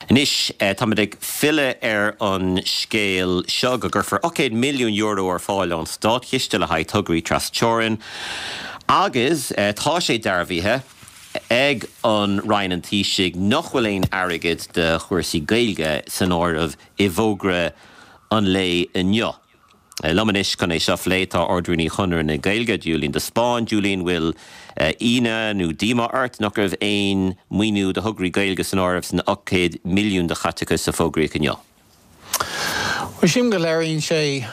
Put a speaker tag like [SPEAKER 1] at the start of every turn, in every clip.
[SPEAKER 1] Anois, táimid ag filleadh ar an scéal seo go gcuirfear €800 milliún ar fáil ón státchiste le haghaidh tograí tras-teorann agus tá sé dearbhaithe ag an Roinn an Taoisigh nach bhfuil aon airgead do chúrsaí Gaeilge san áireamh i bhfógra an lae inniu. Liom anois chun é seo a phlé tá Ard-Rúnaí Chonradh na Gaeilge, Julian de Spáinn. Julian, bhfuil ionadh nó díomá ort nach raibh aon maoiniú do thograí Gaeilge san áireamh san 800 milliún de chaiteachas a fógraíodh inniu?
[SPEAKER 2] Bhuel, sílim go léiríonn sé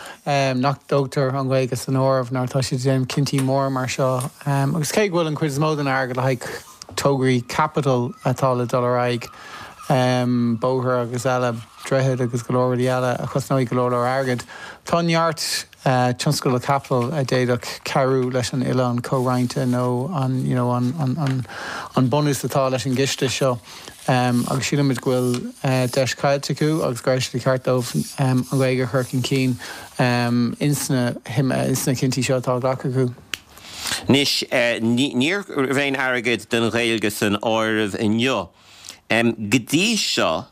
[SPEAKER 2] nach dtógtar an Ghaeilge san áireamh nuair atá siad ag déanamh cinntí móra mar seo. Agus cé go bhfuil an chuid is mó den airgead le haghaidh tograí caipitil atá le dul ar aghaidh, bóithre agus eile, droichid agus go leor rudaí eile a chosnóidh go leor leor airgid. Tá neart tionscadal caipitil a d'fhéadfadh cabhrú leis an oileán comhroinnte nó an you know an an an bunús atá leis an gciste seo agus sílimid go bhfuil deis caillte acu agus go raibh sé de cheart dóibh an Ghaeilge a chur chun cinn ins na ins na cinntí seo atá á ghlacadh acu.
[SPEAKER 1] Anois, ní raibh aon airgead don Ghaeilge san áireamh inniu. Go dtí seo,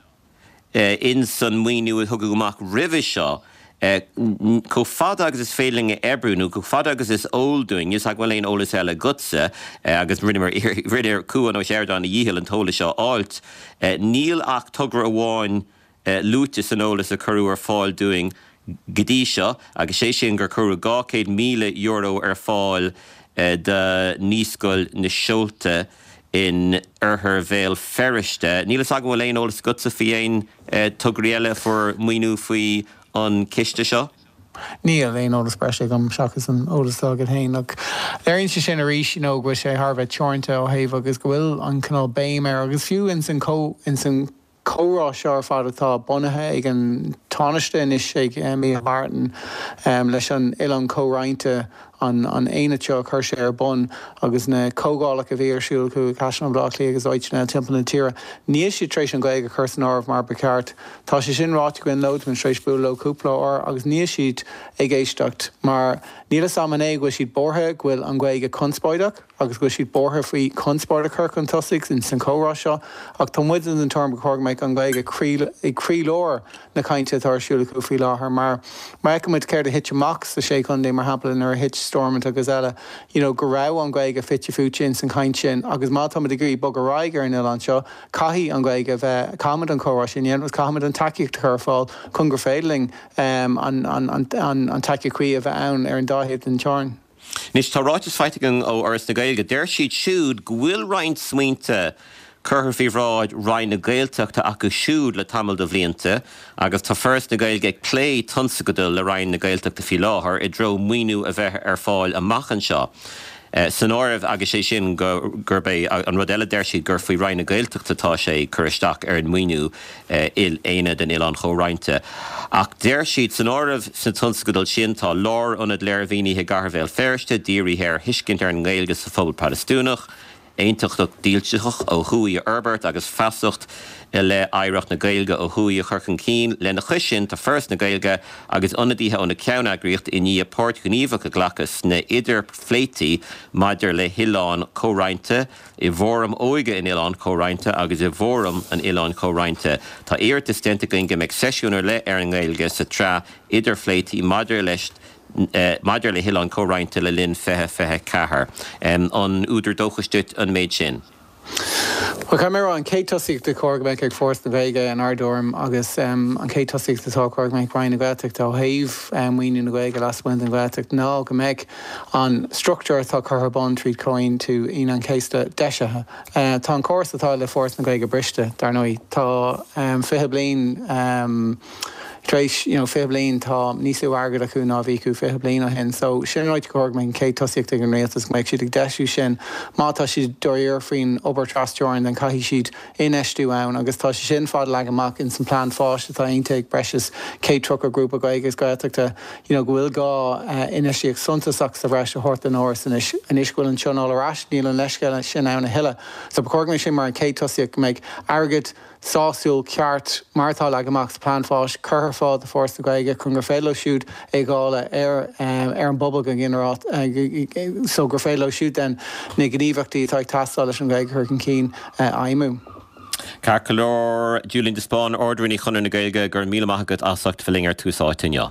[SPEAKER 1] ins an maoiniú a tugadh amach roimhe seo, chomh fada agus is féidir linn a oibriú, nó chomh fada agus is eol dúinn, níl 's agam an bhfuil aon eolas eile agatsa, agus rinneamar, rinne Cuan Ó Seireadáin a dhícheall an t-eolas seo a fháilt, níl ach togra amháin luaite san eolas a cuireadh ar fáil dúinn go dtí seo, agus sé sin gur cuireadh €200,000 ar fáil do Naíscoil na Seolta in oirthear Bhéal Feirste. Níl fhios agam an bhfuil aon eolas agatsa faoi aon tograí eile a fuair maoiniú faoi an ciste seo?
[SPEAKER 2] Níl aon eolas breise agam seachas an eolas atá agat féin. Ach léiríonn sé sin arís you know go bhfuil sé thar a bheith teoranta ó thaobh agus go bhfuil an cineál béim air agus fiú ins an ins an comhrá seo ar fad atá bunaithe ag an Tánaiste anois, ag Micheál Martin, leis an Oileán Comhroinnte, an aonad seo a chuir sé ar bun agus na comhdhálacha a bhí ar siúl acu i gCaisleán Bhaile Átha Cliath agus áiteanna eile timpeall na tíre, níl siad tar éis an Ghaeilge a chur san áireamh mar ba cheart. Tá sé sin ráite againn leo, táimid tar éis bualadh leo cúpla uair agus níl siad ag éisteacht mar níl fhios a'm an é go bhfuil siad buartha go bhfuil an Ghaeilge conspóideach. agus go bhfuil siad buartha faoi chonspóid a chur chun tosaigh ins an chomhrá seo, ach tá muid den tuairim gur chóir go mbeadh an Ghaeilge i gcroílár na cainte atá ar siúl acu faoi láthair mar má fheiceann muid céard a thit amach sa Sé Chontae, mar shampla, nuair a thit Stormont agus eile, you know, go raibh an Ghaeilge fite fuaite ins an chaint sin agus má tá muid ag iarraidh bogadh ar aghaidh ar an oileán seo, caithfidh an Ghaeilge a bheith, caithfimid an comhrá sin a dhéanamh agus caithfimid an tacaíocht a chur ar fáil chun gur féidir linn an an tacaíocht chuí a bheith ann ar an dá thaobh den teorainn.
[SPEAKER 1] Anois, tá ráiteas faighte againn ó Fhoras na Gaeilge. Deir siad siúd go bhfuil roinnt smaointe curtha faoi bhráid Roinn na Gaeltachta acu siúd le tamall de bhlianta agus tá Foras na Gaeilge ag plé tionscadail le Roinn na Gaeltachta faoi láthair i dtreo maoiniú a bheith ar fáil amach anseo san áireamh agus sé sin gurb é an rud eile deir siad gur faoi Roinn na Gaeltachta atá sé cur isteach ar an maoiniú Aonad an Oileáin Chomhroinnte. Ach deir siad, san áireamh sna tionscadail sin tá lárionad léirmhínithe i gcathair Bhéal Feirste, dírithe ar thuiscint ar an nGaeilge sa phobal Protastúnach, aontachtacht dílseach ó thuaidh a fhorbairt agus feasacht i leith oidhreacht na Gaeilge ó thuaidh a chur chun cinn. Lena chois sin, tá Foras na Gaeilge agus ionadaithe ó na ceanneagraíochtaí i ndiaidh páirt ghníomhach a ghlacadh sna hidirphléití maidir le hoileán comhroinnte, i bhFóram Óige an Oileáin Chomhroinnte agus i bhFóram an Oileáin Chomhroinnte. Tá iarratas déanta againn go mbeidh seisiún ar leith ar an nGaeilge sa tsraith idirphléití maidir leis maidir le hOileán Comhroinnte le linn 2024. An údar dóchais duit an méid sin?
[SPEAKER 2] Bhuel, caithfidh mé a rá, an chéad tosaíocht a chóir go mbeadh ag Foras na Gaeilge in ár dtuairim agus an chéad tosaíocht atá chóir go mbeadh ag Roinn na Gaeltachta ó thaobh maoiniú na Gaeilge lasmuigh den Ghaeltacht ná go mbeadh an struchtúr atá curtha ar bun tríd Chomhaontú Aoine an Chéasta deisithe. Tá an córas atá le Foras na Gaeilge briste, dar ndóigh. Tá 20 bliain tar éis, you know, 20 bliain, tá níos lú airgid acu ná a bhí acu 20 bliain ó shin. So, sin an áit gur chóir go mbeadh an chéad tosaíocht ag an rialtas, go mbeadh siad ag deisiú sin. Má tá siad dáiríre faoin obair trasteorann, then caithfidh siad infheistiú ann agus tá sé sin fad leagtha amach ins an plean fáis atá aontaithe ag breis is 130 grúpa Gaeilge agus Gaeltachta you know go bhfuil gá infheistíocht suntasach sa bhreis a thabhairt don Fhoras anois. Anois go bhfuil an Tionól ar ais níl an leithscéal sin ann a thuilleadh. So ba chóir go mbeadh sin mar an chéad tosaíocht go mbeadh airgead sásúil ceart mar atá leagtha amach sa plean fáis curtha ar fáil do Foras na Gaeilge chun gur féidir leo siúd é a dháileadh ar ar an bpobal go ginearálta so gur féidir leo siúd then na gníomhaíochtaí atá ag teastáil leis an Ghaeilge a chur chun cinn a fheidhmiú.
[SPEAKER 1] Ceart go leor, Julian de Spáinn, Ard-Rúnaí Chonradh na Gaeilge, go raibh míle maith agat as ucht a bheith linn ar Tús Áite inniu.